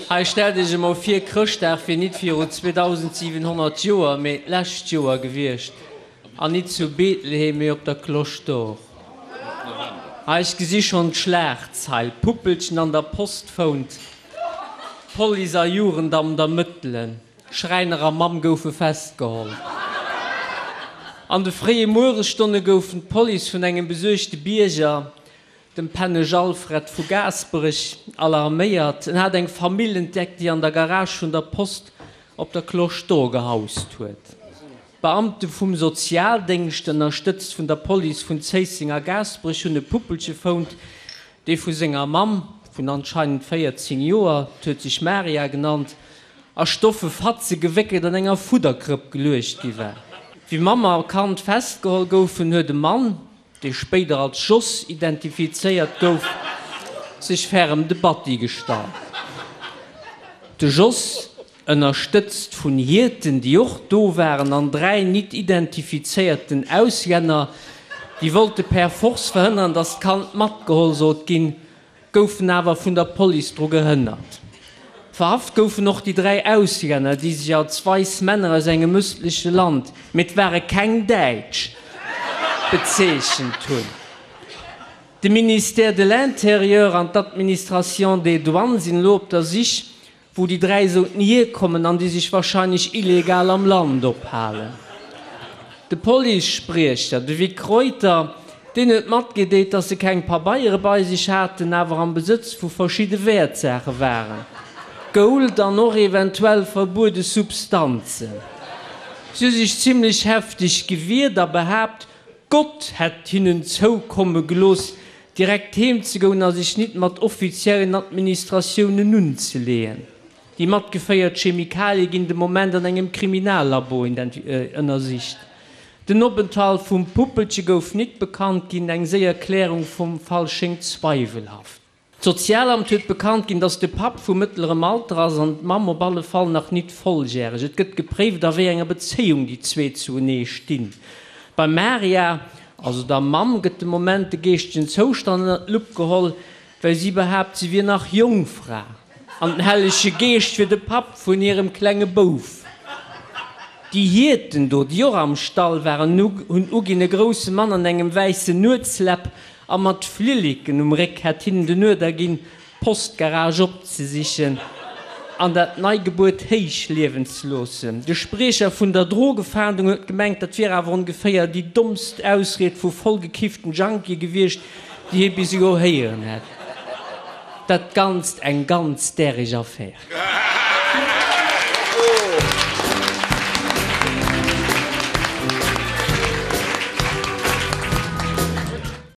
Hei, stellt iech emol vir, Chrëschtdag wier nit viru 2700 Joer, mee d'lescht Joer gewiescht, an nit zu Bethlehem, mee op der Cloche d'Or. Hei, ech gesi schonn d'Schlagzeil, Puppelchen an der Post fount, Police a Jugendamt ermëttelen, Schräiner a Mamm goufe festgeholl. An de fréie Mueresstonne goufen d'Police vun engem besuergte Bierger, dem Pennesch Alfred vu Gaasperech, alarméiert. En hat eng Famill entdeckt, déi an der Garage vun der Post op der Cloche d'Or gehaust huet. D'Beamte vum Sozialdéngscht, ënnerstëtzt vun der Police vun Zéisseng a Gaasperech, hunn e Puppelche fount, dee vu senger Mamm vun anscheinend 14 Joer, 't huet sech Maria genannt, a stoffe Fatze gewéckelt an enger Fudderkrëpp geluecht gi war. Wéi Mamm a Kand festgeholl goufen, huet e Mann, dee spéider als Jos identifizéiert gouf, sech ferrem de Batti gestallt. De Jos, ënnerstëtzt vun Hierten, déi och do waren, an 3 nit identifizéierten Auslänner, déi wollte per force verhënneren, datt d'Kand matgeholl sollt ginn, goufen awer vun der Police dru gehënnert. Verhaft goufen och déi 3 Auslänner, déi sech als weiss Männer aus engem ëstleche Land, mee et ware keng Däitsch, bezeechent hunn. De Ministère de l'Intérieur an d'Administration des Douanes sinn elo op der Sich wou déi 3 sollten hierkommen an déi sech wahrscheinlech illegal am Land ophalen. De Policespriecher, de Vic Reuter, deen huet matgedeelt, datt se keng Pabeiere bei sech haten, awer am Besëtz vu verschidde Wäertsaache waren, Gold an och eventuell verbuede Substanzen. Si hu sech zimlech hefteg gewiert a behaapt, Gott hätt hinnen zoukomme gelooss, direkt heem ze goen a sech nit mat offiziellen Administratiounen unzeleeën. Déi matgeféiert Chemikalie ginn de Moment an engem Kriminallabo ënnersicht. Den Openthalt vum Puppelche gouf nit bekannt ginn, eng séier Klärung vum Fall schéngt zweiwelhaft. D'Sozialamt huet bekannt ginn, datt de Papp vu mëttlerem Alter ass an d'Mamm op alle Fall nach nit volljäreg. Et gëtt gepréift, a wéi enger Bezéiung déi zwee zuenee stinn. Beim Maria, also der Mamm, gëtt de Moment de geeschtegen Zoustand ënnert d'Lupp geholl, well si behaapt, si wier nach Jongfra an den Hellege Geescht wier de Papp vun hirem klenge Bouf. Déi Hierten do, déi och am Stall waren, hunn uginn, e grousse Mann an engem wäissen Nuetsläpp A mat Flilleken um Réck hätt hinnen den Uerder ginn, d'Postgarage opzesichen an dat Neigebuert héich liewen ze loossen. De Spriecher vun der Drogefahndung huet gemengt, dat wier awer ongeféier déi dommst Ausried vu vollgekifften Junkie gewiescht, déi hie bis elo héieren hätt. Dat Ganzt eng ganz däreg Affär.